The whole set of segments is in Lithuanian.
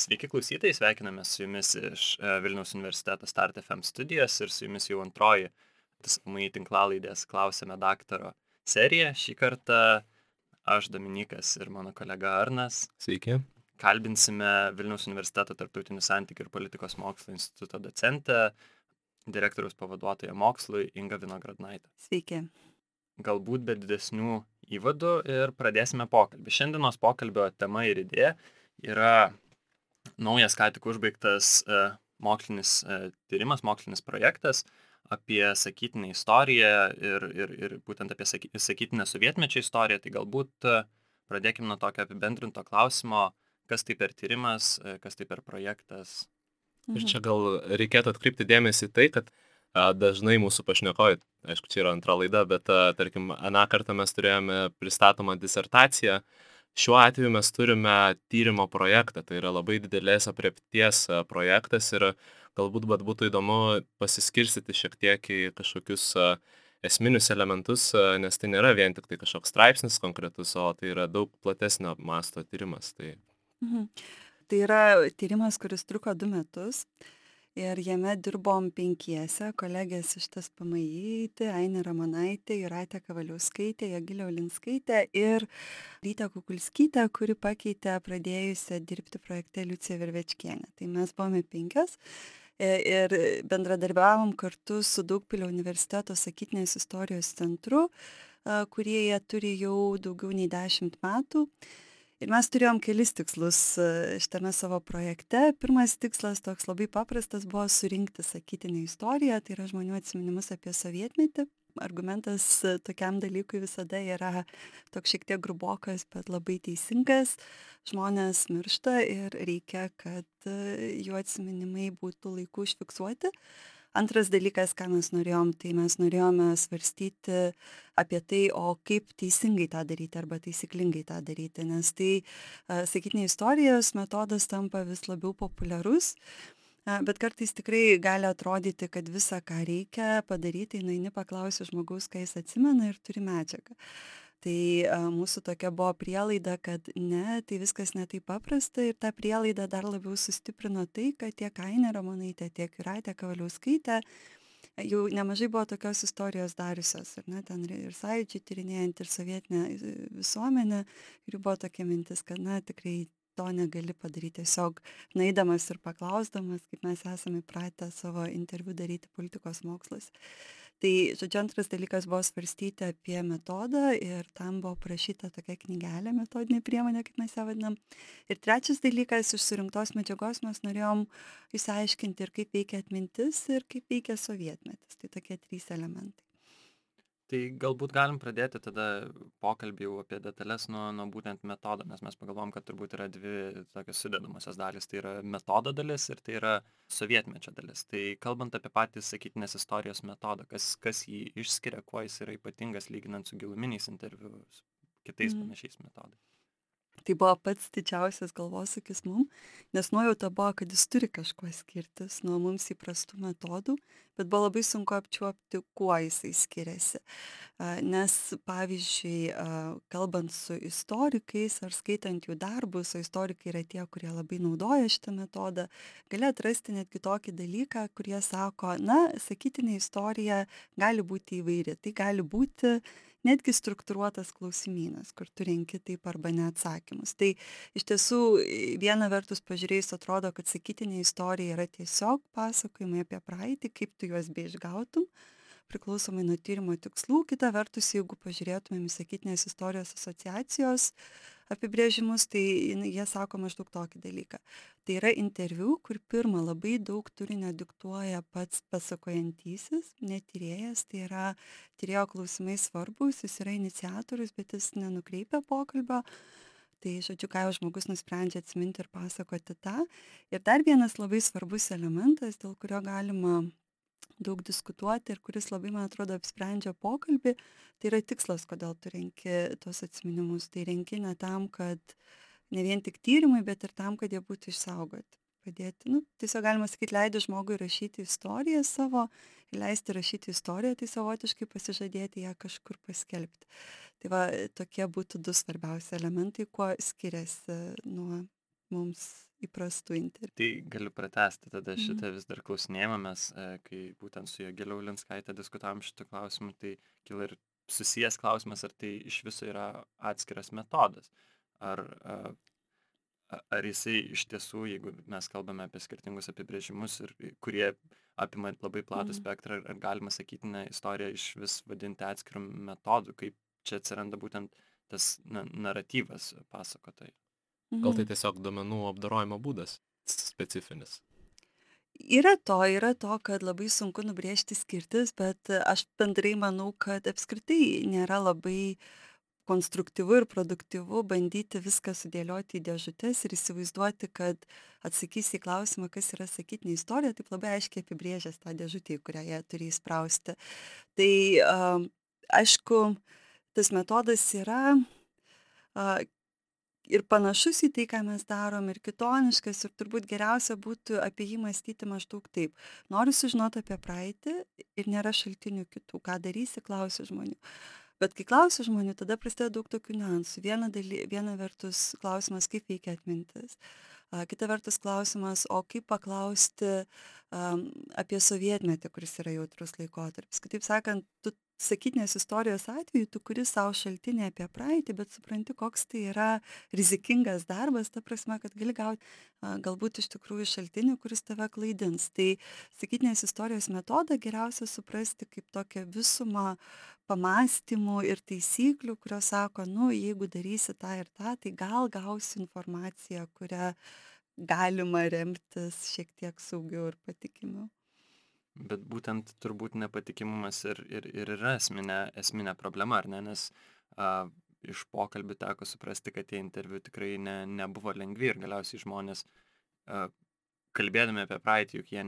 Sveiki klausytojai, sveikiname su jumis iš Vilniaus universiteto Start FM studijos ir su jumis jau antroji TSMI tinklalaidės Klausėme daktaro serija. Šį kartą aš, Dominykas ir mano kolega Arnas Sveiki. kalbinsime Vilniaus universiteto tarptautinių santykių ir politikos mokslo instituto docentę, direktoriaus pavaduotoją mokslui Ingą Vinogradnaitę. Sveiki. Galbūt be didesnių įvadų ir pradėsime pokalbį. Šiandienos pokalbio tema ir idėja yra naujas ką tik užbaigtas mokslinis tyrimas, mokslinis projektas apie sakytinę istoriją ir būtent apie sakytinę sovietmečio istoriją. Tai galbūt pradėkime nuo tokio apibendrinto klausimo, kas tai per tyrimas, kas tai per projektas. Ir čia gal reikėtų atkreipti dėmesį į tai, kad dažnai mūsų pašnekovai, aišku, čia yra antra laida, bet tarkim, aną kartą mes turėjome pristatomą disertaciją. Šiuo atveju mes turime tyrimo projektą, tai yra labai didelės aprėpties projektas ir galbūt būtų įdomu pasiskirstyti šiek tiek į kažkokius esminius elementus, nes tai nėra vien tik tai kažkoks straipsnis konkretus, o tai yra daug platesnio masto tyrimas. Tai yra tyrimas, kuris truko 2 metus ir jame dirbom 5, kolegės iš TSPMI, Ainė Ramonaitė, Jūratė Kavaliauskaitė, Jogilė Ulinskaitė ir Rytė Kukulskytė, kuri pakeitė pradėjusią dirbti projekte Liuciją Vervečkienę. Tai mes buvome 5 ir bendradarbiavom kartu su Daugpilio universiteto sakytinės istorijos centru, kurie jie turi jau daugiau nei 10 metų. Ir mes turėjom kelis tikslus šitame savo projekte. Pirmas tikslas, toks labai paprastas, buvo surinkti sakytinę istoriją, tai yra žmonių atsiminimus apie sovietmetį. Argumentas tokiam dalykui visada yra toks šiek tiek grubokas, bet labai teisingas. Žmonės miršta ir reikia, kad jų atsiminimai būtų laiku užfiksuoti. Antras dalykas, ką mes norėjom, tai mes norėjome svarstyti apie tai, o kaip teisingai tą daryti arba taisyklingai tą daryti, nes tai sakytinės istorijos metodas tampa vis labiau populiarus, bet kartais tikrai gali atrodyti, kad visą, ką reikia padaryti, nueini paklausi žmogaus, ką jis atsimena ir turi medžiagą. Tai mūsų tokia buvo prielaida, kad ne, tai viskas ne taip paprasta ir tą prielaidą dar labiau sustiprino tai, kad tiek Ainė Ramonaitė, tiek Jūratė Kavaliauskaitė jau nemažai buvo tokios istorijos dariusios, ar ne, ten ir sąjūdžiai tyrinėjant, ir sovietinę visuomenę, ir jų buvo tokia mintis, kad na tikrai to negali padaryti tiesiog nueidamas ir paklausdamas, kaip mes esame įpratę savo interviu daryti politikos mokslas. Tai, žodžiu, antras dalykas buvo svarstyti apie metodą ir tam buvo parašyta tokia knygelė, metodinė priemonė, kaip mes ją vadinam. Ir trečias dalykas, iš surinktos medžiagos mes norėjom išsiaiškinti ir kaip veikia atmintis ir kaip veikia sovietmetis. Tai tokie 3 elementai. Tai galbūt galim pradėti tada pokalbį jau apie detalės nuo būtent metodo, nes mes pagalvom, kad turbūt yra 2 tokios sudedamosios dalys. Tai yra metodo dalis ir tai yra sovietmečio dalis. Tai kalbant apie patį sakytinės istorijos metodą, kas jį išskiria, kuo jis yra ypatingas lyginant su giluminiais interviu, kitais panašiais metodais. Tai buvo pats didžiausias galvosūkis mum, nes nuojauta buvo, kad jis turi kažkuo skirtis nuo mums įprastų metodų, bet buvo labai sunku apčiuopti, kuo jisai skiriasi. Nes, pavyzdžiui, kalbant su istorikais ar skaitant jų darbus, o istorikai yra tie, kurie labai naudoja šitą metodą, gali atrasti netgi tokį dalyką, kurie sako, na, sakytinė istorija gali būti įvairi. Tai gali būti netgi struktūruotas klausimynas, kur tu renki taip arba ne atsakymus. Tai iš tiesų viena vertus pažiūrėjus atrodo, kad sakytinė istorija yra tiesiog pasakojimai apie praeitį, kaip tu juos beišgautum, priklausomai nuo tyrimo tikslų. Kita vertus, jeigu pažiūrėtumėm į sakytinės istorijos asociacijos apibrėžimus, tai jie sako maždaug tokį dalyką. Tai yra interviu, kur pirmą labai daug turinio diktuoja pats pasakojantysis, ne tyrėjas, tai yra tyrėjo klausimai svarbus, jis yra iniciatorius, bet jis nenukreipia pokalbio. Tai, žodžiu, ką jau žmogus nusprendžia atsiminti ir pasakoti tą. Ir dar vienas labai svarbus elementas, dėl kurio galima daug diskutuoti ir kuris labai, man atrodo, apsprendžia pokalbį, tai yra tikslas, kodėl tu renki tos atsiminimus. Tai renki ne tam, kad ne vien tik tyrimai, bet ir tam, kad jie būtų išsaugoti. Padėti, tiesiog galima sakyti, leidi žmogui rašyti istoriją savo, leisti rašyti istoriją, tai savotiškai pasižadėti ją kažkur paskelbti. Tai va, tokie būtų 2 svarbiausi elementai, kuo skiriasi nuo mums įprastų interviu. Tai galiu pratęsti tada šitą vis dar klausinėjimą, mes, kai būtent su Jogile Ulinskaite diskutavom šitą klausimą, tai kilo ir susijęs klausimas, ar tai iš viso yra atskiras metodas. Ar jisai iš tiesų, jeigu mes kalbame apie skirtingus apibrėžimus, kurie apima labai platų spektrą, ar galima sakyti, istoriją iš vis vadinti atskirų metodų, kaip čia atsiranda būtent tas naratyvas pasakotojai. Gal tai tiesiog duomenų apdorojimo būdas specifinis? Yra to, kad labai sunku nubrėžti skirtis, bet aš bendrai manau, kad apskritai nėra labai konstruktyvu ir produktyvu bandyti viską sudėlioti į dėžutes ir įsivaizduoti, kad atsakysi į klausimą, kas yra sakytinė istorija, taip labai aiškiai apibrėžęs tą dėžutę, į kurią jie turi įsprausti. Tai aišku, tas metodas yra ir panašus į tai, ką mes darom, ir kitoniškas, ir turbūt geriausia būtų apie jį mąstyti maždaug taip. Noriu sužinoti apie praeitį ir nėra šaltinių kitų. Ką darysi, klausiu žmonių. Bet kai klausiu žmonių, tada prasideda daug tokių niuansų. Viena vertus klausimas, kaip veikia atmintis. Kita vertus klausimas, o kaip paklausti apie sovietmetį, kuris yra jautrus laikotarpis. Kitaip sakant, tu sakytinės istorijos atveju, tu kuri savo šaltinį apie praeitį, bet supranti, koks tai yra rizikingas darbas, ta prasme, kad gali gauti galbūt iš tikrųjų šaltinį, kuris tave klaidins. Tai sakytinės istorijos metodą geriausia suprasti kaip tokią visumą pamąstymų ir taisyklių, kurios sako, jeigu darysi tą ir tą, tai gal gausi informaciją, kurią galima remtis šiek tiek saugiau ir patikimiau. Bet būtent turbūt nepatikimumas ir yra esminė problema, ar ne? Nes iš pokalbių teko suprasti, kad tie interviu tikrai nebuvo lengvi ir galiausiai žmonės, kalbėdami apie praeitį, juk jie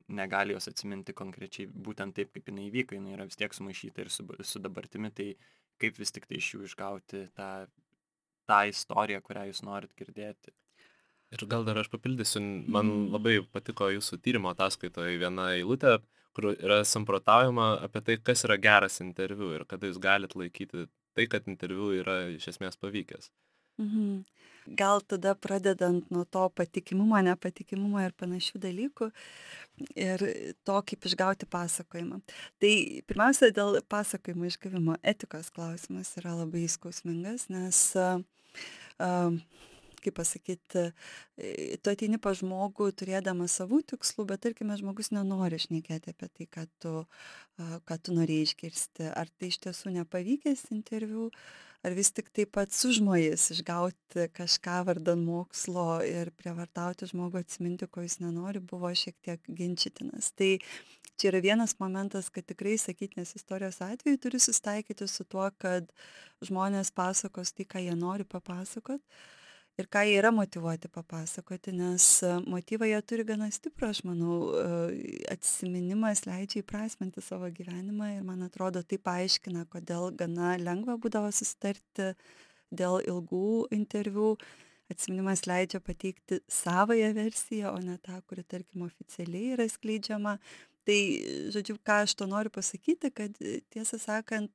negali jos atsiminti konkrečiai būtent taip, kaip jinai įvyko, jinai yra vis tiek sumaišyta ir su dabartimi, tai kaip vis tik tai iš jų išgauti tą istoriją, kurią jūs norit girdėti. Ir gal dar aš papildysiu, man labai patiko jūsų tyrimo ataskaitoje viena eilutė, kur yra samprotaujama apie tai, kas yra geras interviu ir kada jūs galit laikyti tai, kad interviu yra iš esmės pavykęs. Gal tada pradedant nuo to patikimumo, nepatikimumo ir panašių dalykų ir to, kaip išgauti pasakojimą. Tai pirmiausia, dėl pasakojimo išgavimo etikos klausimas yra labai skausmingas, nes kaip pasakyti, tu ateini pas žmogų turėdamas savų tikslų, bet tarkime, žmogus nenori šnekėti apie tai, ką tu norėjai išgirsti. Ar tai iš tiesų nepavykęs interviu, ar vis tik taip pat sužmojęs išgauti kažką vardan mokslo ir prievartauti žmogų atsiminti, ko jis nenori, buvo šiek tiek ginčytinas. Tai čia yra vienas momentas, kad tikrai sakytinės istorijos atveju turi susitaikyti su tuo, kad žmonės pasakos tai, ką jie nori papasakot. Ir ką jie yra motyvuoti papasakoti, nes motyvą jie turi gana stiprų, aš manau, atsiminimas leidžia įprasminti savo gyvenimą ir man atrodo tai paaiškina, kodėl gana lengva būdavo susitarti dėl ilgų interviu. Atsiminimas leidžia pateikti savąją versiją, o ne tą, kuri, tarkim, oficialiai yra skleidžiama. Tai, žodžiu, ką aš to noriu pasakyti, kad tiesą sakant,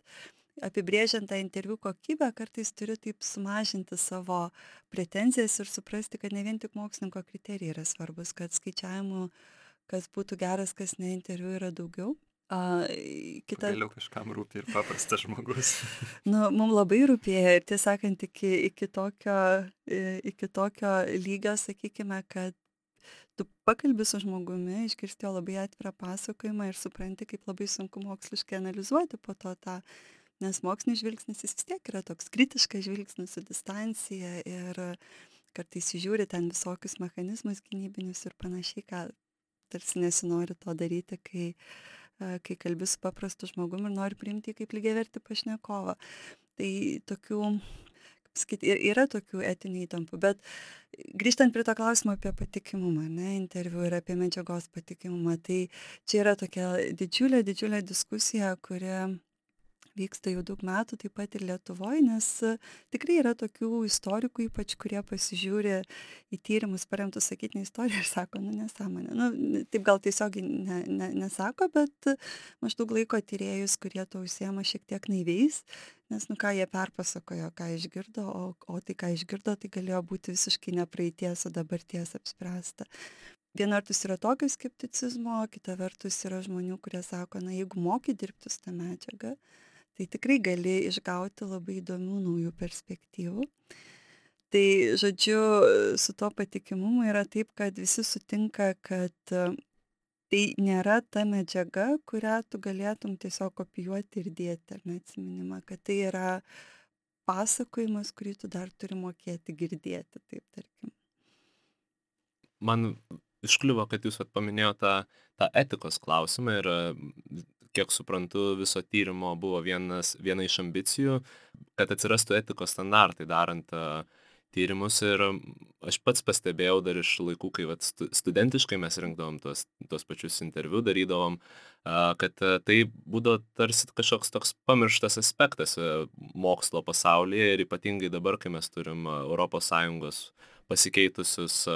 apibrėžiant tą interviu kokybę, kartais turiu taip sumažinti savo pretenzijas ir suprasti, kad ne vien tik mokslininko kriterijai yra svarbus, kad skaičiavimų, kas būtų geras, kas ne interviu yra daugiau. Vėliau kažkam rūpi ir paprastas žmogus. Mums labai rūpėjo ir tiesą sakant, iki tokio lygio, sakykime, kad tu pakalbi su žmogumi, išgirsti jo labai atvirą pasakojimą ir supranti, kaip labai sunku moksliškai analizuoti po to tą. Nes mokslinis žvilgsnis jis vis tiek yra toks kritiškas žvilgsnis su distancija ir kartais žiūri ten visokius mechanizmus gynybinius ir panašiai, ką tarsi nesinori to daryti, kai kalbi su paprastu žmogumi ir nori priimti kaip lygiavertį pašnekovą. Tai tokių, kaip sakyti, yra tokių etinių įtampų, bet grįžtant prie to klausimo apie patikimumą, interviu ir apie medžiagos patikimumą, tai čia yra tokia didžiulė diskusija, kuri vyksta jau daug metų, taip pat ir Lietuvoje, nes tikrai yra tokių istorikų, ypač kurie pasižiūri į tyrimus paremtus sakytinę istoriją ir sako, nu nesąmonė. Nu, taip gal tiesiog nesako, bet maždaug laiko tyrėjus, kurie to užsiema šiek tiek naiviais, nes nu ką jie perpasakojo, ką išgirdo, o tai ką išgirdo, tai galėjo būti visiškai ne praeities, o dabarties apspręsta. Viena vertus yra tokio skepticizmo, kita vertus yra žmonių, kurie sako, na jeigu moki dirbti su tą medžiagą, tai tikrai gali išgauti labai įdomių naujų perspektyvų. Tai, žodžiu, su to patikimumu yra taip, kad visi sutinka, kad tai nėra ta medžiaga, kurią tu galėtum tiesiog kopijuoti ir dėti, ar neatsiminimą, kad tai yra pasakojimas, kurį tu dar turi mokėti girdėti, taip tarkim. Man iškliuvo, kad jūs paminėjote tą etikos klausimą ir kiek suprantu, viso tyrimo buvo viena iš ambicijų, kad atsirastų etikos standartai darant tyrimus ir aš pats pastebėjau dar iš laikų, kai studentiškai mes rinkdavom tuos pačius interviu, darydavom, kad tai būdavo tarsi kažkoks toks pamirštas aspektas mokslo pasaulyje ir ypatingai dabar, kai mes turim ES pasikeitusius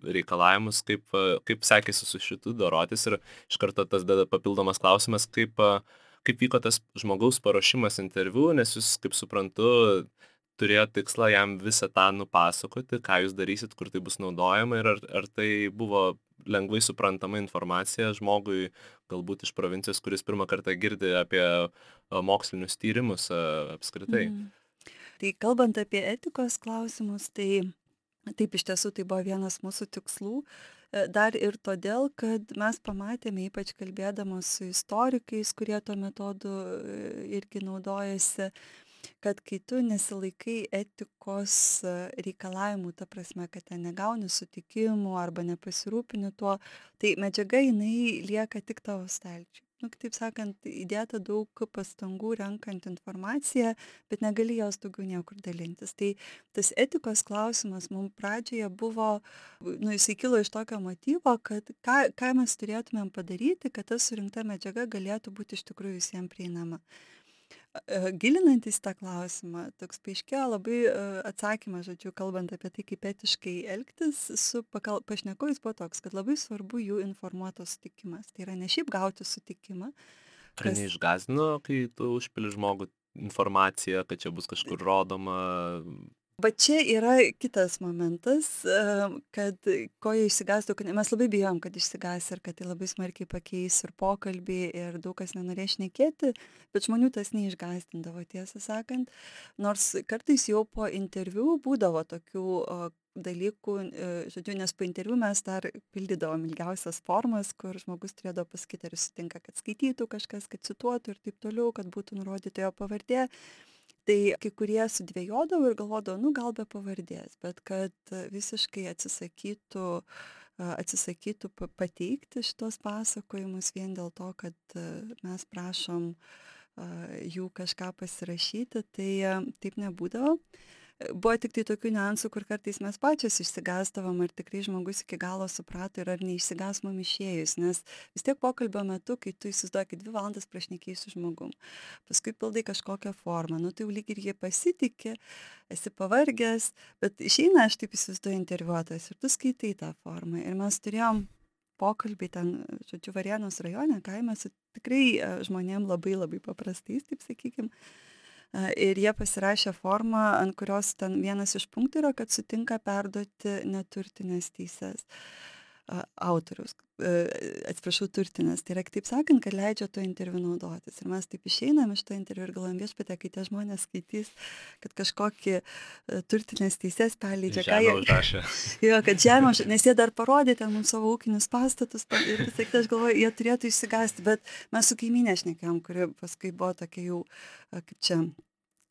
reikalavimus, kaip sekėsi su šitu dorotis ir iš karto tas papildomas klausimas, kaip vyko tas žmogaus paruošimas interviu, nes jūs, kaip suprantu, turėjo tikslą jam visą tą nupasakoti, ką jūs darysit, kur tai bus naudojama ir ar tai buvo lengvai suprantama informacija žmogui, galbūt iš provincijos, kuris pirmą kartą girdi apie mokslinius tyrimus apskritai. Tai kalbant apie etikos klausimus, tai taip iš tiesų tai buvo vienas mūsų tikslų. Dar ir todėl, kad mes pamatėme, ypač kalbėdamos su istorikais, kurie tuo metodu irgi naudojasi, kad kai tu nesilaikai etikos reikalavimų, ta prasme, kad ten negauni sutikimų arba nepasirūpini tuo, tai medžiaga jinai lieka tik tavo stalčiui. Nu, kitaip sakant, įdėta daug pastangų renkant informaciją, bet negali jos daugiau niekur dalintis. Tai tas etikos klausimas mums pradžioje buvo, jisai kilo iš tokio motyvo, kad ką mes turėtumėm padaryti, kad ta surinkta medžiaga galėtų būti iš tikrųjų visiems prieinama. Gilinantis tą klausimą, toks paaiškėjo labai atsakymas, žodžiu, kalbant apie tai, kaip etiškai elgtis su pašnekovais, buvo toks, kad labai svarbu jų informuotos sutikimas. Tai yra ne šiaip gauti sutikimą. Ar neišgąsdino, kai tu užpili žmogų informaciją, kad čia bus kažkur rodoma? Bet čia yra kitas momentas, kad ko jie išsigąstų, kad mes labai bijom, kad išsigąs ir kad tai labai smarkiai pakeis ir pokalbį ir daug kas nenorės šnekėti, bet žmonių tas neišgąsdindavo, tiesą sakant. Nors kartais jau po interviu būdavo tokių dalykų, žodžiu, nes po interviu mes dar pildydavom ilgiausias formas, kur žmogus turėdavo pasakyti, ar sutinka, kad skaitytų kažkas, kad cituotų ir taip toliau, kad būtų nurodyta jo pavardė. Tai kai kurie sudvejodavo ir galvodavo, nu gal be pavardės, bet kad visiškai atsisakytų pateikti šitos pasakojimus vien dėl to, kad mes prašom jų kažką pasirašyti, tai taip nebūdavo. Buvo tik tai tokių niuansų, kur kartais mes pačios išsigąsdavom, ar tikrai žmogus iki galo suprato ir ar neišsigąs mum išėjus, nes vis tiek pokalbio metu, kai tu įsivaizduoji 2 valandas prašnekėjai su žmogum, paskui pildai kažkokią formą, nu tai jau lyg ir jie pasitikė, esi pavargęs, bet išeina, aš taip įsivaizduoju, interviuotojas ir tu skaitai tą formą ir mes turėjom pokalbį ten, žodžiu, Varėnos rajone, kaime su tikrai žmonėm labai labai paprastais, taip sakykim. Ir jie pasirašė formą, ant kurios ten vienas iš punktų yra, kad sutinka perduoti neturtinės teises autoriaus, atsiprašau, turtinės. Tai yra, kitaip sakant, kad leidžia to interviu naudotis. Ir mes taip išeinam iš to interviu ir galvojam, viešpatie, kai tie žmonės skaitys, kad kažkokį turtinės teises perleidžia. Žemę užrašė. Jo, kad žemę, nes jie dar parodė ten mums savo ūkinius pastatus ir visai, aš galvoju, jie turėtų išsigąsti, bet mes su kaimynė šnekėjom, kuri paskui buvo tokia jau, kaip čia,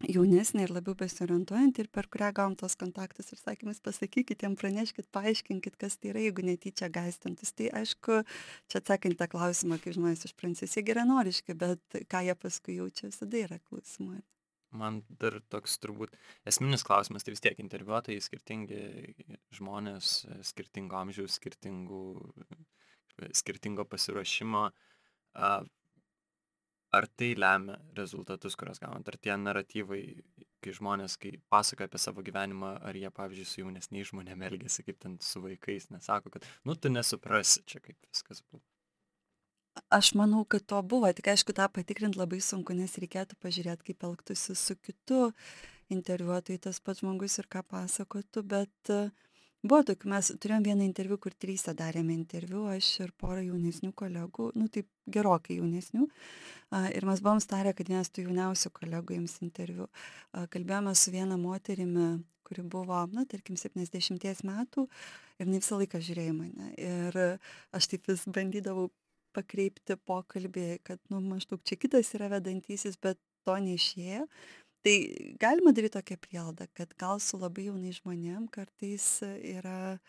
jaunesnė ir labiau besiorientuojant ir per kurią gavom tos kontaktus ir sakymus, pasakykit jiem, praneškit, paaiškinkit, kas tai yra, jeigu netyčia gąsdintis. Tai aišku, čia atsakant tą klausimą, kaip žmonės iš Prancūzijos, jie geranoriški, bet ką jie paskui jaučia, visada yra klausimai. Man dar toks turbūt esminis klausimas, tai vis tiek interviuotojai skirtingi žmonės, skirtingo amžiaus, skirtingo pasiruošimo. ar tai lemia rezultatus, kuriuos gaunat? Ar tie naratyvai, kai žmonės, kai pasakoja apie savo gyvenimą, ar jie, pavyzdžiui, su jaunesniais žmonėmis elgiasi kaip ten su vaikais, nesako, kad, nu, tu nesuprasi čia, kaip viskas buvo. Aš manau, kad to buvo, tik aišku, tą patikrint labai sunku, nes reikėtų pažiūrėti, kaip elgtųsi su kitu interviuotojai tas pats žmogus ir ką pasakotų, bet buvo tokių, mes turėjom vieną interviu, kur 3 darėme interviu, aš ir porą jaunesnių kolegų, nu taip gerokai jaunesnių, ir mes buvom starę, kad vienas tų jauniausių kolegų jums interviu. Kalbėjome su viena moterimi, kuri buvo, na, tarkim, 70 metų ir jinai visą laiką žiūrėjo į mane. Ir aš taip vis bandydavau pakreipti pokalbį, kad, nu, maždaug čia kitas yra vedantysis, bet to neišėjo. Tai galima daryti tokią prielaidą, kad gal su labai jaunai žmonėm kartais yra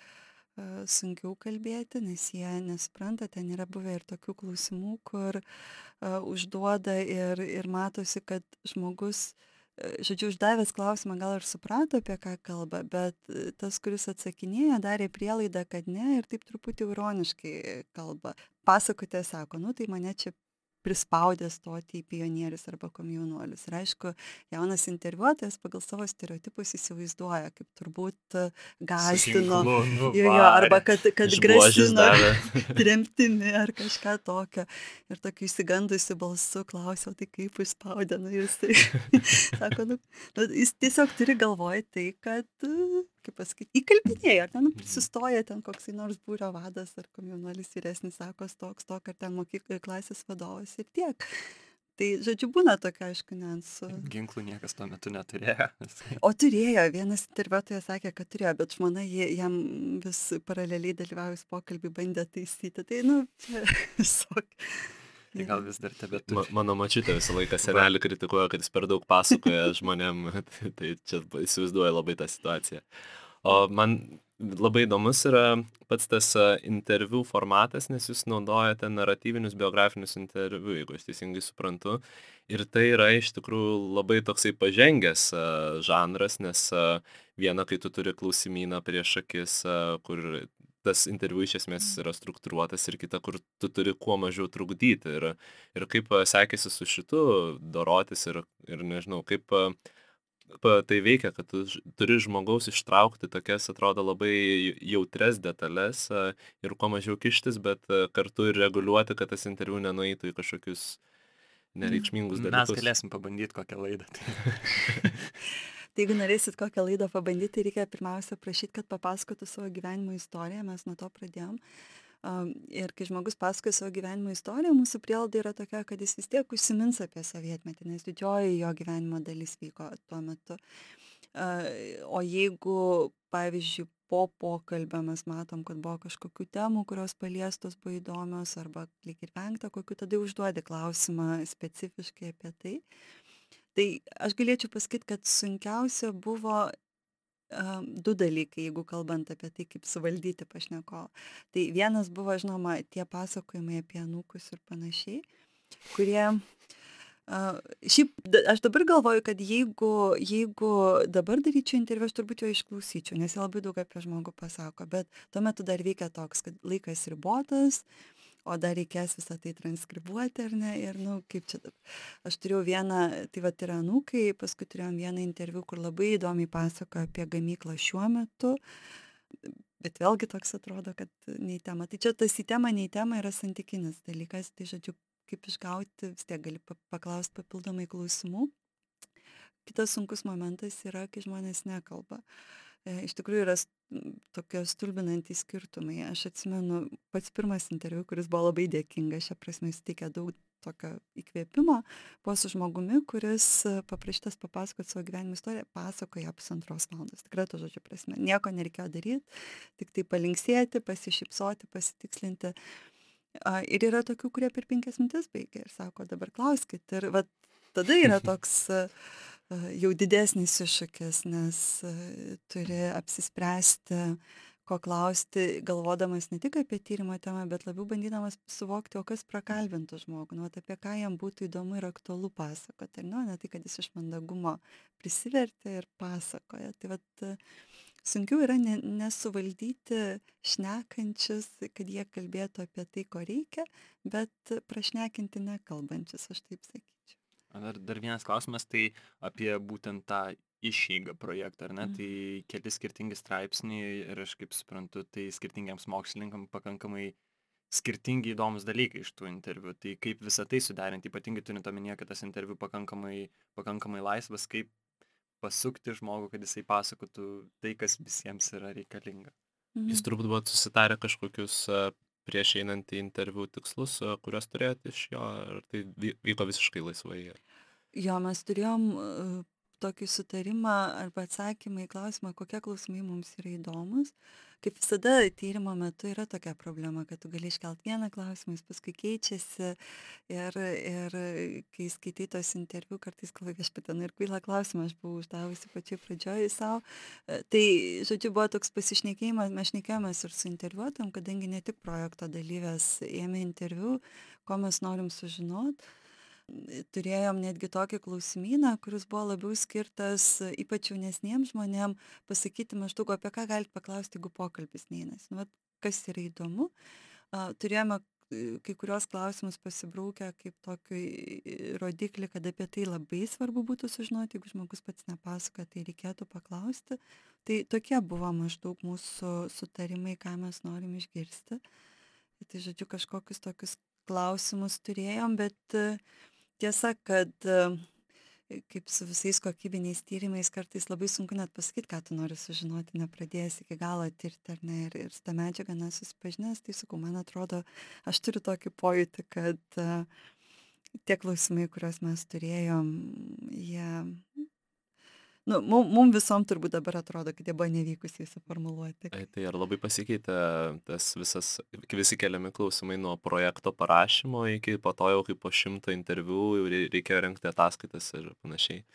sunkiau kalbėti, nes jie nesupranta, ten yra buvę ir tokių klausimų, kur užduoda ir matosi, kad žmogus, žodžiu, uždavęs klausimą gal ir suprato, apie ką kalba, bet tas, kuris atsakinėjo, darė prielaidą, kad ne, ir taip truputį ironiškai kalba. Pasakotė sako, nu tai mane čia prispaudė stoti į pionierius arba komjaunuolius. Ir aišku, jaunas interviuotojas pagal savo stereotipus įsivaizduoja, kaip turbūt gąsdino, arba kad grasino tremtimi ar kažką tokio. Ir tokiu įsigandusiu balsu klausiau, tai kaip išspaudė, nu jisai sako, nu, jis tiesiog turi galvoj tai, kad, kaip pasakyti, įkalbinėja, ar ten prisistoja ten koksai nors būrio vadas ar komjaunuolis vyresnis, sako, toks, ar ten klasės vadovas ir tiek. Tai, žodžiu, būna tokia, aišku, niuansų. Ginklų niekas tuo metu neturėjo. O turėjo, vienas interviuotojas sakė, kad turėjo, bet žmona jam vis paraleliai dalyvaujus pokalbį bandė taisyti. Tai, nu, čia visokia. Tai gal vis dar tebeturi. Mano močiutė visą laiką senelį kritikuoja, kad jis per daug pasakoja žmonėm, tai čia įsivaizduoja labai tą situaciją. O man labai įdomus yra pats tas interviu formatas, nes jūs naudojate naratyvinius biografinius interviu, jeigu aš teisingai suprantu. Ir tai yra iš tikrųjų labai toksai pažengęs žanras, nes viena, kai tu turi klausimyną prieš akis, kur tas interviu iš esmės yra struktūruotas, ir kita, kur tu turi kuo mažiau trukdyti. Ir kaip sekėsi su šitu dorotis ir nežinau, kaip tai veikia, kad tu turi žmogaus ištraukti tokias, atrodo, labai jautres detalės ir kuo mažiau kištis, bet kartu ir reguliuoti, kad tas interviu nenueitų į kažkokius nereikšmingus dalykus. Mes galėsim pabandyti kokią laidą. Tai jeigu norėsit kokią laidą pabandyti, tai reikia pirmiausia prašyti, kad papasakotų savo gyvenimo istoriją, mes nuo to pradėjom. Ir kai žmogus pasakoja savo gyvenimo istoriją, mūsų prielaida yra tokia, kad jis vis tiek užsimins apie sovietmetį, nes didžioji jo gyvenimo dalis vyko tuo metu. O jeigu, pavyzdžiui, po pokalbio mes matom, kad buvo kažkokių temų, kurios paliestos buvo įdomios, arba lyg ir vengta kokių, tada užduodi klausimą specifiškai apie tai. Tai aš galėčiau pasakyti, kad sunkiausia buvo 2 dalykai, jeigu kalbant apie tai, kaip suvaldyti pašnekovą. Tai vienas buvo, žinoma, tie pasakojimai apie anūkus ir panašiai, kurie, šiaip aš dabar galvoju, kad jeigu dabar daryčiau interviu, aš turbūt jo išklausyčiau, nes jie labai daug apie žmogų pasako, bet tuo metu dar veikia toks, kad laikas ribotas, o dar reikės visą tai transkribuoti, ar ne, ir, nu, kaip čia dabar. Aš turėjau vieną, tai va, yra anūkai, paskui turėjom vieną interviu, kur labai įdomiai pasakojo apie gamyklą šiuo metu, bet vėlgi toks atrodo, kad nei tema. Tai čia tas į temą, nei tema yra santykinis dalykas, tai, žodžiu, kaip išgauti, vis tiek gali paklausti papildomai klausimų. Kitas sunkus momentas yra, kai žmonės nekalba. Iš tikrųjų yra tokie stulbinantys skirtumai. Aš atsimenu pats pirmas interviu, kuris buvo labai dėkingas, šia prasme suteikė daug tokio įkvėpimo, buvo su žmogumi, kuris paprašytas papasakoti savo gyvenimo istoriją, pasakoja 1,5 valandos. Tikrai to žodžio prasme. Nieko nereikėjo daryti, tik tai palinksėti, pasišypsoti, pasitikslinti. Ir yra tokių, kurie per 5 minutes baigia ir sako, dabar klauskit. Ir va, tada yra toks jau didesnis iššūkis, nes turi apsispręsti, ko klausti, galvodamas ne tik apie tyrimo temą, bet labiau bandydamas suvokti, o kas prakalbintų žmogų, nu, apie ką jam būtų įdomu ir aktualu pasakoti. Ne tai, kad jis iš mandagumo prisivertė ir pasakoja. Tai vat, Sunkiau yra nesuvaldyti šnekančius, kad jie kalbėtų apie tai, ko reikia, bet prašnekinti nekalbančius, aš taip sakyčiau. Dar vienas klausimas, tai apie būtent tą išeigą projektą, ar ne? Tai keli skirtingi straipsniai ir aš kaip suprantu, tai skirtingiams mokslininkams pakankamai skirtingi įdomus dalykai iš tų interviu. Tai kaip visą tai suderinti, ypatingai turint omenyje, kad tas interviu pakankamai laisvas, kaip pasukti žmogų, kad jisai pasakotų tai, kas visiems yra reikalinga. Jūs turbūt buvot susitarę kažkokius prieš einant į interviu tikslus, kuriuos turėjote iš jo, ar tai vyko visiškai laisvai? Jo, mes turėjom tokį sutarimą arba atsakymą į klausimą, kokie klausimai mums yra įdomus. Kaip visada, tyrimo metu yra tokia problema, kad tu gali iškelt vieną klausimą, jis paskui keičiasi ir kai skaitai tos interviu, kartais galvoji, viešpatie, ir kvailą klausimą aš buvau uždavusi pačioj pradžioj savo. Tai, žodžiu, buvo toks pasišnekėjimas, mes šnekėjomės ir su interviuotojom, kadangi ne tik projekto dalyvės ėmė interviu, ko mes norim sužinoti. Turėjom netgi tokį klausimyną, kuris buvo labiau skirtas ypač jaunesniems žmonėm pasakyti maždaug, apie ką galite paklausti, jeigu pokalbis neįnas. Nu, kas yra įdomu. Turėjome kai kurios klausimus pasibraukę kaip tokį rodiklį, kad apie tai labai svarbu būtų sužinoti, jeigu žmogus pats nepasako, tai reikėtų paklausti. Tai tokie buvo maždaug mūsų sutarimai, ką mes norim išgirsti. Tai, žodžiu, kažkokius tokius klausimus turėjom, bet tiesa, kad kaip su visais kokybiniais tyrimais kartais labai sunku net pasakyti, ką tu nori sužinoti, nepradėjęs iki galo tirti, ar ne, ir su tą medžiagą nesusipažinęs, tai sakau, man atrodo, aš turiu tokį pojūtį, kad tie klausimai, kuriuos mes turėjom, jie, nu, mum visom turbūt dabar atrodo, kad jie buvo nevykusiai suformuluoti. Tai ar labai pasikeitė tas visi keliami klausimai nuo projekto parašymo iki po to jau kaip po 100 interviu jau reikėjo rengti ataskaitas ir panašiai?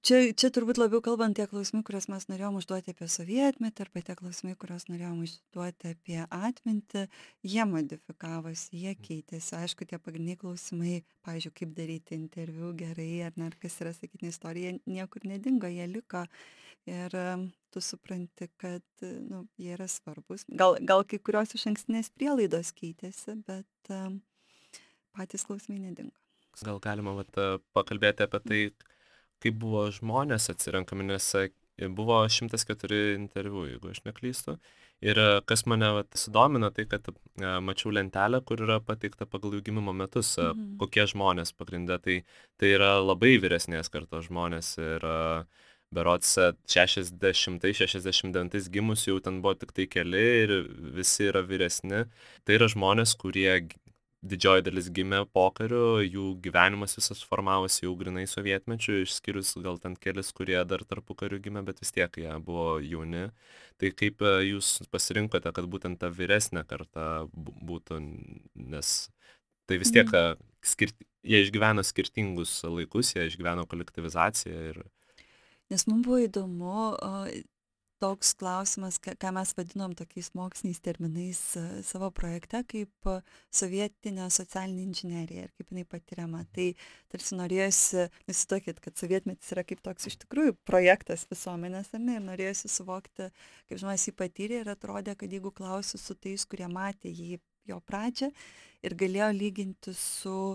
Čia turbūt labiau kalbant tie klausimai, kuriuos mes norėjom užduoti apie sovietmetį, arba tie klausimai, kuriuos norėjom užduoti apie atmintį, jie modifikavosi, jie keitėsi. Aišku, tie pagrindiniai klausimai, pavyzdžiui, kaip daryti interviu gerai, ar ne, ar kas yra sakytinė istorija, niekur nedingo, jie liko. Ir tu supranti, kad jie yra svarbus. Gal kai kurios iš ankstinės prielaidos keitėsi, bet patys klausimai nedingo. Gal galima pakalbėti apie tai, kaip buvo žmonės atsirenkami, nes buvo 104 interviu, jeigu aš neklystu. Ir kas mane sudomino, tai kad mačiau lentelę, kur yra pateikta pagal jų gimimo metus, kokie žmonės pagrinde. Tai yra labai vyresnės kartos žmonės ir berods 60-69 gimus jau ten buvo tik tai keli ir visi yra vyresni. Tai yra žmonės, kurie didžioji dalis gimė pokariu, jų gyvenimas visas formavosi jau grinai sovietmečiu, išskyrus gal ten kelis, kurie dar tarpukariu gimė, bet vis tiek jie buvo jauni. Tai kaip jūs pasirinkote, kad būtent ta vyresnė karta būtų, nes tai vis tiek jie išgyveno skirtingus laikus, jie išgyveno kolektyvizaciją. Nes mums buvo įdomu toks klausimas, ką mes vadinom tokiais moksliniais terminais savo projekte, kaip sovietinė socialinė inžinerija ir kaip jinai patiriama. Tai tarsi norėjosi, įsivaizduokit, kad sovietmetis yra kaip toks iš tikrųjų projektas visuomenės, ar ne, ir norėjosi suvokti, kaip žmonės jį patyrė ir atrodė, kad jeigu klausiu su tais, kurie matė jo pradžią ir galėjo lyginti su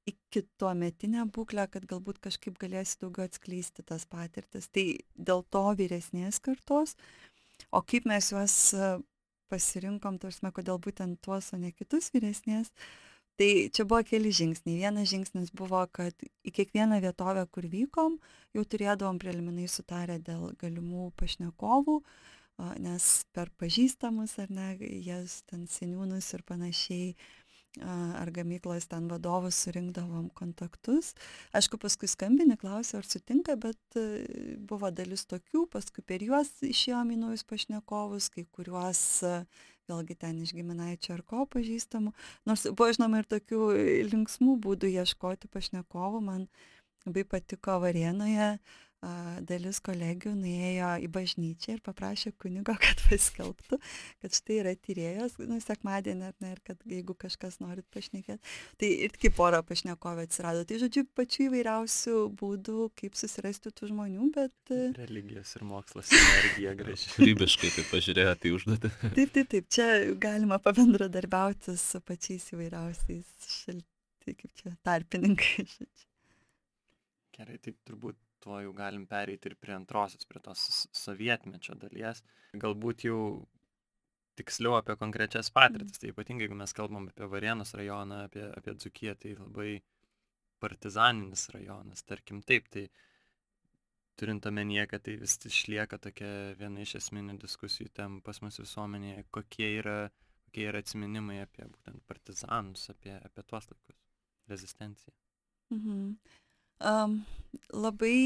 iki tuometinę būklę, kad galbūt kažkaip galėsi daugiau atskleisti tas patirtis. Tai dėl to vyresnės kartos, o kaip mes juos pasirinkom, tarsi, kodėl būtent tuos, o ne kitus vyresnės, tai čia buvo keli žingsniai. Vienas žingsnis buvo, kad į kiekvieną vietovę, kur vykom, jau turėdavom preliminai sutarę dėl galimų pašnekovų, nes per pažįstamus, ar ne, jas ten seniūnus ir panašiai, ar gamyklos ten vadovus surinkdavom kontaktus. Aišku, paskui skambini, klausia, ar sutinka, bet buvo dalis tokių, paskui per juos išėjom į naujus pašnekovus, kai kuriuos vėlgi ten iš giminaičio ar ko pažįstamų. Nors buvo, žinoma, ir tokių linksmų būdų ieškoti pašnekovų. Man labai patiko Varėnoje dalis kolegių nuėjo į bažnyčią ir paprašė kunigo, kad paskelbtų, kad štai yra tyrėjos, sekmadienį, ar ne, ir kad jeigu kažkas norit pašnekėti. Tai ir kaip pora pašnekovė atsirado. Tai žodžiu, pačių įvairiausių būdų, kaip susirasti tų žmonių, bet... Religijos ir mokslas energija graži. Kūrybiškai taip pažiūrėjo tai užduotį. Taip, čia galima pabendradarbiauti su pačiais įvairiausiais kaip čia, tarpininkai. Gerai, tai turbūt tuo jau galim pereiti ir prie antrosios, prie tos sovietmečio dalies. Galbūt jau tiksliau apie konkrečias patirtis. Tai ypatingai, jeigu mes kalbam apie Varėnos rajoną, apie Dzūkiją, tai labai partizaninis rajonas, tarkim taip. Tai turint omenyje, kad tai vis išlieka tokia viena iš esminių diskusijų tem pas mus visuomenėje, kokie yra atsiminimai apie būtent partizanus, apie tuos laikus, rezistenciją. Labai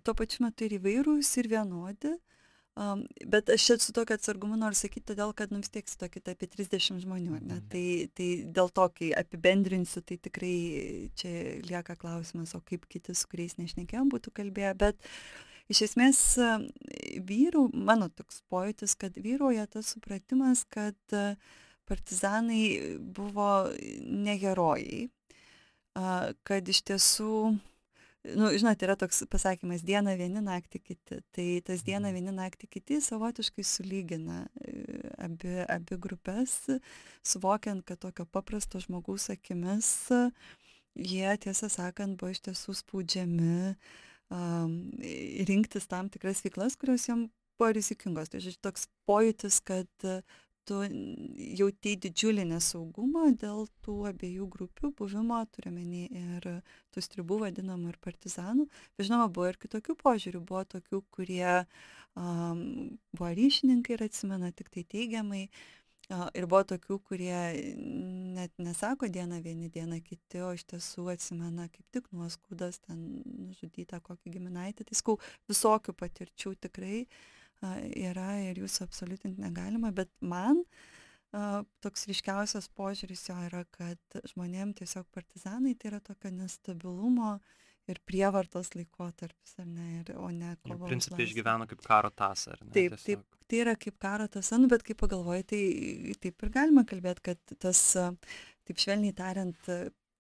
tuo pačiu metu ir įvairūs, ir vienodi, bet aš čia su tokiu atsargumu noriu sakyti, todėl, kad vis tiek su tokia apie 30 žmonių, ne? Tai dėl to, kai apibendrinsiu, tai tikrai čia lieka klausimas, o kaip kiti, su kuriais nešnekėjom, būtų kalbėję, bet iš esmės mano toks pojūtis, kad vyrauja tas supratimas, kad partizanai buvo ne herojai, kad iš tiesų, žinot, yra toks pasakymas, dieną vieni, naktį kiti. Tai tas dieną vieni, naktį kiti savotiškai sulygina abi grupės, suvokiant, kad tokio paprasto žmogaus akimis jie, tiesą sakant, buvo iš tiesų spaudžiami rinktis tam tikras veiklas, kurios jam buvo rizikingos. Tai žodžiu, toks pojūtis, kad tu jautei didžiulį nesaugumą dėl tų abiejų grupių buvimo, turiuomenį ir tų stribų vadinamų ir partizanų. Bet žinoma, buvo ir kitokių požiūrių, buvo tokių, kurie buvo ryšininkai ir atsimena tik tai teigiamai. Ir buvo tokių, kurie net nesako dieną vieni, dieną kiti, o iš tiesų atsimena kaip tik nuoskaudas, ten nužudytą kokį giminaitį. Tai skau, visokių patirčių tikrai yra ir jūsų absoliutinti negalima, bet man toks ryškiausias požiūris jo yra, kad žmonėm tiesiog partizanai tai yra tokio nestabilumo ir prievartos laikotarpis, ar ne, o ne kovo. Principai išgyveno kaip karo tąsą, ar ne? Taip, tai yra kaip karo tąsa, bet kaip pagalvoji, tai taip ir galima kalbėti, kad tas, taip švelniai tariant,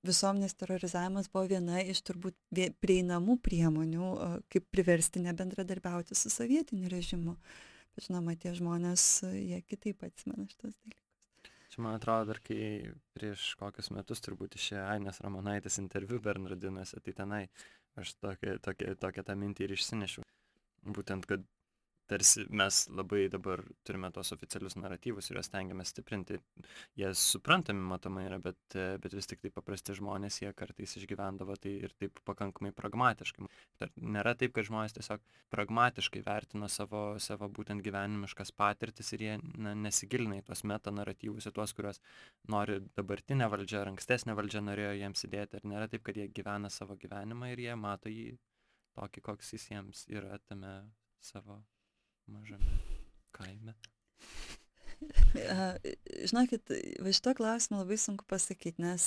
visuomenės terorizavimas buvo viena iš turbūt prieinamų priemonių, kaip priversti nebendradarbiauti su sovietiniu režimu. Bet žinoma, tie žmonės, jie kitaip atsimena šitos dalykus. Čia man atrodo, dar kai prieš kokius metus turbūt išėjo Ainės Ramonaitės interviu Bernardinuose, tai tenai aš tokią tą mintį ir išsinešiau. Būtent, kad tarsi mes labai dabar turime tos oficialius naratyvus ir juos stengiamės stiprinti. Jie suprantami matomai yra, bet vis tik tai paprasti žmonės, jie kartais išgyvendavo tai ir taip pakankamai pragmatiškai. Nėra taip, kad žmonės tiesiog pragmatiškai vertino savo būtent gyvenimiškas patirtis ir jie nesigilina į tuos metanaratyvus, į tuos, kuriuos nori dabartinė valdžia ar ankstesnė valdžia norėjo jiems įdėti. Ir nėra taip, kad jie gyvena savo gyvenimą ir jie mato jį tokį, koks jis jiems yra tame savo mažame kaime. Žinokit, va šito klausimą labai sunku pasakyti, nes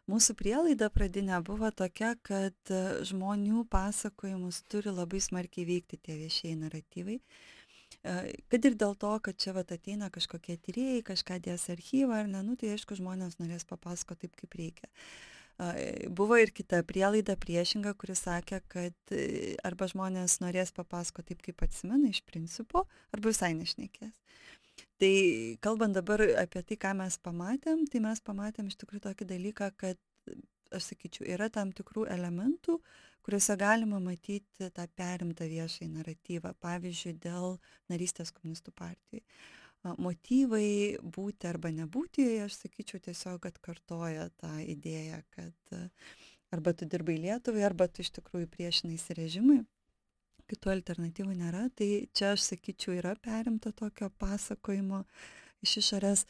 mūsų prielaida pradinė buvo tokia, kad žmonių pasakojimus turi labai smarkiai veikti tie viešieji naratyvai. Kad ir dėl to, kad čia vat ateina kažkokie tyrėjai, kažką dės archyvą ar ne, tai aišku, žmonės norės papasakoti taip, kaip reikia. Buvo ir kita prielaida priešinga, kuris sakė, kad arba žmonės norės papasakoti taip, kaip atsimena iš principo, arba visai nešnekės. Tai kalbant dabar apie tai, ką mes pamatėm, tai mes pamatėm iš tikrųjų tokį dalyką, kad, aš sakyčiau, yra tam tikrų elementų, kuriuose galima matyti tą perimtą viešąjį naratyvą, pavyzdžiui, dėl narystės komunistų partijai. Motyvai būti arba nebūti, aš sakyčiau, tiesiog atkartoja tą idėją, kad arba tu dirbai Lietuvai, arba tu iš tikrųjų priešinaisi režimui, kitų alternatyvų nėra. Tai čia, aš sakyčiau, yra perimta tokio pasakojimo iš išorės,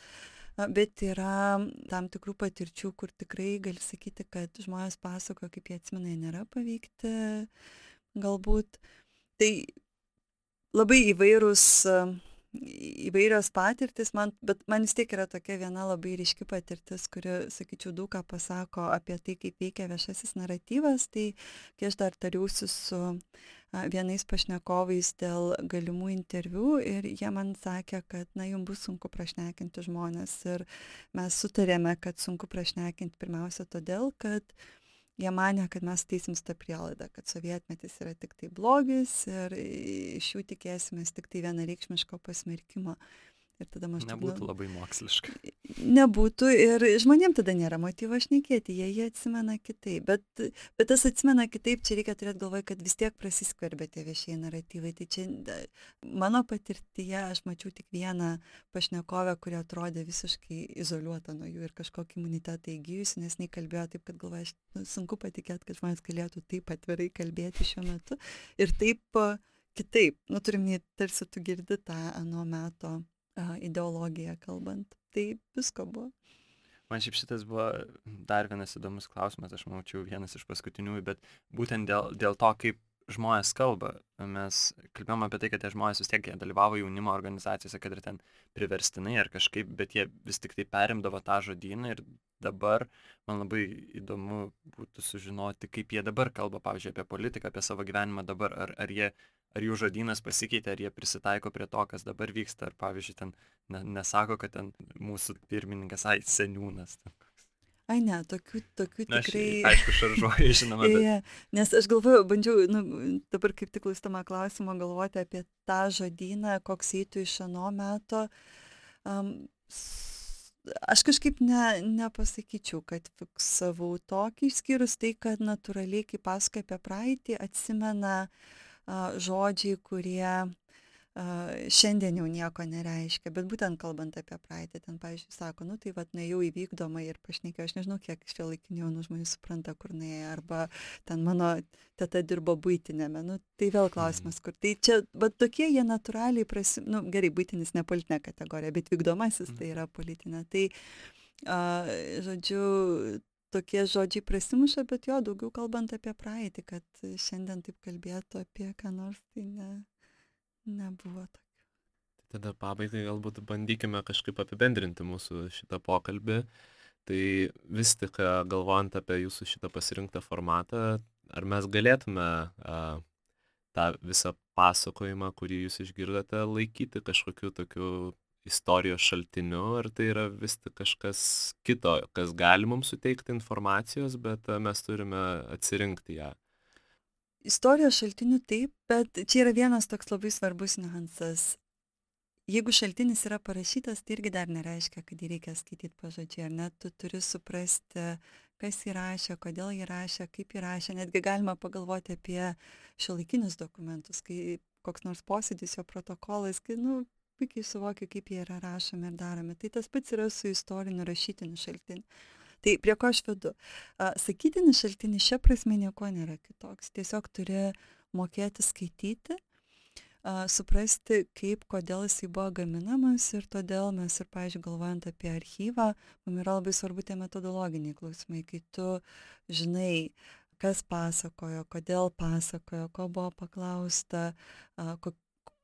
bet yra tam tikrų patirčių, kur tikrai gali sakyti, kad žmonės pasakoja, kaip jie atsimena, jie nėra paveikti, galbūt. Tai labai įvairūs įvairios patirtis, bet man vis tiek yra tokia viena labai ryški patirtis, kuri, sakyčiau, daug ką pasako apie tai, kaip veikia viešasis naratyvas. Tai kai aš dar tariausi su vienais pašnekovais dėl galimų interviu ir jie man sakė, kad, jums bus sunku prašnekinti žmonės. Ir mes sutarėme, kad sunku prašnekinti pirmiausia todėl, kad jie manė, kad mes teisim tą prielaidą, kad sovietmetis yra tik tai blogis ir iš jų tikėsimės tik tai vienareikšmiško pasmerkimo. Ir tada maždaug... Nebūtų labai moksliška. Nebūtų ir žmonėm tada nėra motyvo šnekėti, jie atsimena kitaip. Bet tas atsimena kitaip, čia reikia turėti galvoje, kad vis tiek prasiskverbia tie viešieji naratyvai. Tai čia mano patirtyje aš mačiau tik vieną pašnekovę, kuri atrodė visiškai izoliuota nuo jų ir kažkokį imunitetą įgyjusi, nes jinai kalbėjo taip, kad galvoja, sunku patikėti, kad žmonės galėtų taip atvirai kalbėti šiuo metu. Ir taip kitaip, turim, tarsi tu girdi tą ano meto ideologiją kalbant. Tai visko buvo. Man šiaip šitas buvo dar vienas įdomus klausimas, aš mačiau vienas iš paskutiniųjų, bet būtent dėl to, kaip žmonės kalba. Mes kalbėjome apie tai, kad tie žmonės vis tiek dalyvavo jaunimo organizacijose, kad ir ten priverstinai ar kažkaip, bet jie vis tik tai perimdavo tą žodyną ir dabar man labai įdomu būtų sužinoti, kaip jie dabar kalba, pavyzdžiui, apie politiką, apie savo gyvenimą dabar, ar jų žodynas pasikeitė, ar jie prisitaiko prie to, kas dabar vyksta, ar pavyzdžiui, ten nesako, kad ten mūsų pirmininkas, seniūnas. Ai ne, tokių tikrai... Aišku, šaržuoju, žinoma, bet... Nes aš galvoju, bandžiau, dabar kaip tik klausydama klausimo, galvoti apie tą žodyną, koks eitų iš ano meto. Aš kažkaip nepasakyčiau, kad fiksavau tokį, išskyrus tai, kad natūraliai, kai pasakoja apie praeitį, atsimena žodžiai, kurie šiandien jau nieko nereiškia, bet būtent kalbant apie praeitį, ten, pavyzdžiui, sako, tai nuėjau į vykdomą ir pašnekėjau, aš nežinau, kiek šiuolaikinių jaunų žmonių supranta, kur nuėjo, arba ten mano teta dirbo buitinėme, tai vėl klausimas, kur. Tai čia, bet tokie jie natūraliai gerai, buitinis ne politinė kategorija, bet vykdomasis tai yra politinė. Tai, žodžiu, tokie žodžiai prasimuša, bet jo, daugiau kalbant apie praeitį, kad šiandien taip kalbėtų apie ką nors, tai nebuvo tokio. Tada pabaigai galbūt bandykime kažkaip apibendrinti mūsų šitą pokalbį. Tai vis tik galvojant apie jūsų šitą pasirinktą formatą, ar mes galėtume tą visą pasakojimą, kurį jūs išgirdote, laikyti kažkokiu tokiu istorijos šaltiniu, ar tai yra vis tik kažkas kito, kas gali mums suteikti informacijos, bet mes turime atsirinkti ją. Istorijos šaltiniu taip, bet čia yra vienas toks labai svarbus niuansas. Jeigu šaltinis yra parašytas, tai irgi dar nereiškia, kad jį reikia skaityti pažodžiui, ar ne? Tu turi suprasti, kas jį rašė, kodėl jį rašė, kaip jį rašė. Netgi galima pagalvoti apie šiuolaikinius dokumentus, kai koks nors posėdis, jo protokolas, kai, puikiai suvokia, kaip jie yra rašomi ir daromi. Tai tas pats yra su istoriniu rašytiniu šaltiniu. Tai prie ko aš vedu? Sakytinis šaltinis šia prasme nieko nėra kitoks. Tiesiog turi mokėti skaityti, suprasti, kodėl jisai buvo gaminamas ir todėl mes ir, pavyzdžiui, galvojant apie archyvą, mums yra labai svarbu tie metodologiniai klausimai, kai tu žinai, kas pasakojo, kodėl pasakojo, ko buvo paklausta,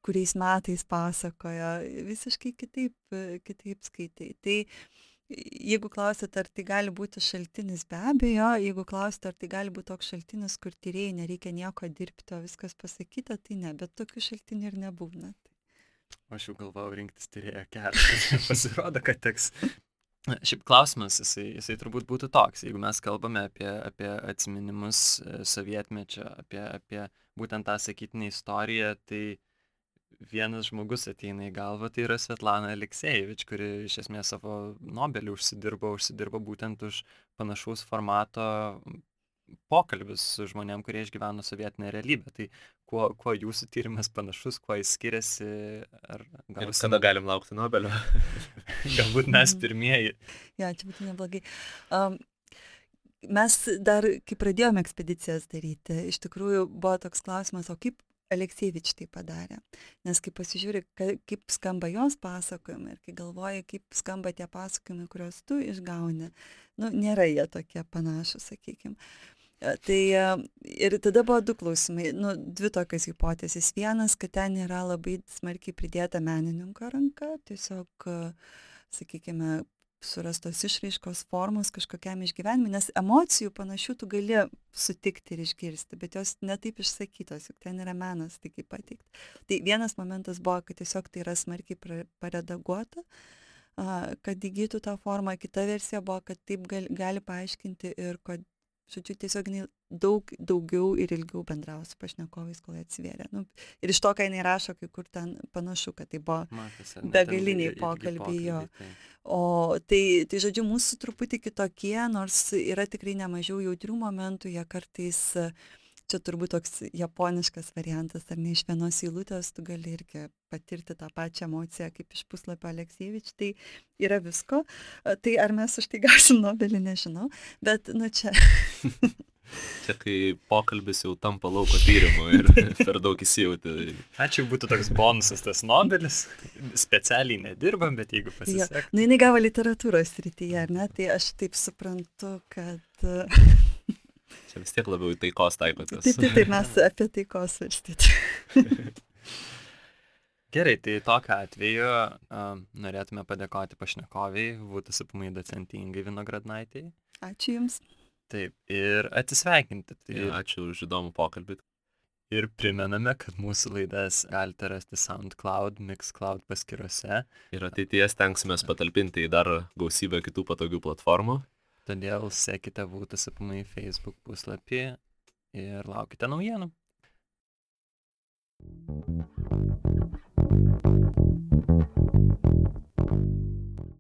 kuriais metais pasakojo, visiškai kitaip skaitai. Tai jeigu klausėt, ar tai gali būti šaltinis, be abejo, jeigu klausėt, ar tai gali būti toks šaltinis, kur tyrėjai nereikia nieko dirbti, o viskas pasakyta, tai ne, bet tokių šaltinių ir nebūna. Aš jau galvojau rinktis tyrėjo kelią, pasirodo, kad teks. Šiaip klausimas, jisai turbūt būtų toks, jeigu mes kalbame apie atsiminimus sovietmečio, apie būtent tą sakytinę istoriją, tai vienas žmogus ateina į galvą, tai yra Svetlana Aleksiejevič, kuri iš esmės savo Nobelį užsidirbo būtent už panašaus formato pokalbius su žmonėm, kurie išgyveno sovietinę realybę. Tai kuo jūsų tyrimas panašus, kuo jis skiriasi? Ir kada galim laukti Nobelio? Galbūt mes pirmieji. Ja, čia būtų neblogai. Mes dar, kai pradėjome ekspedicijas daryti, iš tikrųjų buvo toks klausimas, o kaip Aleksiejevič tai padarė. Nes kai pasižiūri, kaip skamba jos pasakojimai ir kai galvoji, kaip skamba tie pasakojimai, kuriuos tu išgauni, nėra jie tokie panašus, sakykime. Ir tada buvo du klausimai, dvi tokios hipotezės. Vienas, kad ten yra labai smarkiai pridėta menininko ranka, tiesiog, sakykime, surastos išraiškos formos kažkokiam išgyvenimui, nes emocijų panašių tu gali sutikti ir išgirsti, bet jos netaip išsakytos, juk ten yra menas, tai kaip pateikti. Tai vienas momentas buvo, kad tiesiog tai yra smarkiai paredaguota, kad įgytų tą formą. Kita versija buvo, kad taip gali paaiškinti ir kad, žodžiu, tiesiog daugiau ir ilgiau bendravo su pašnekovais, kol atsivėrė. Ir iš to, ką jinai rašo, kai kur ten panašu, kad tai buvo begaliniai pokalbiai jo. O tai, žodžiu, mūsų truputį kitokie, nors yra tikrai nemažiau jautrių momentų, jie kartais, čia turbūt toks japoniškas variantas, ar ne, iš vienos eilutės tu gali irgi patirti tą pačią emociją kaip iš puslapio Aleksievič, tai yra visko. Tai ar mes už tai gausim Nobelį, nežinau, bet, čia... Čia kai pokalbis jau tampa lauko tyrimu ir per daug įsijauti. Ačiū, būtų toks bonusas tas Nobelis. Specialiai nedirbam, bet jeigu pasisek. Jinai gavo literatūros srityje, ar ne? Tai aš taip suprantu, kad... Čia vis tiek labiau į taikos taikotės. Taip, mes apie taikos svarstyti. Gerai, tai tokiu atveju norėtume padėkoti pašnekoviai, VTSPMI docentei Ingai Vinogradnaitei. Ačiū Jums. Taip, ir atsisveikinti. Ačiū už įdomų pokalbį. Ir primename, kad mūsų laidas galite rasti SoundCloud, Mixcloud paskyrose. Ir ateityje stengsimės patalpinti į dar gausybę kitų patogių platformų. Todėl sekite VTSPMI Facebook puslapį ir laukite naujienų.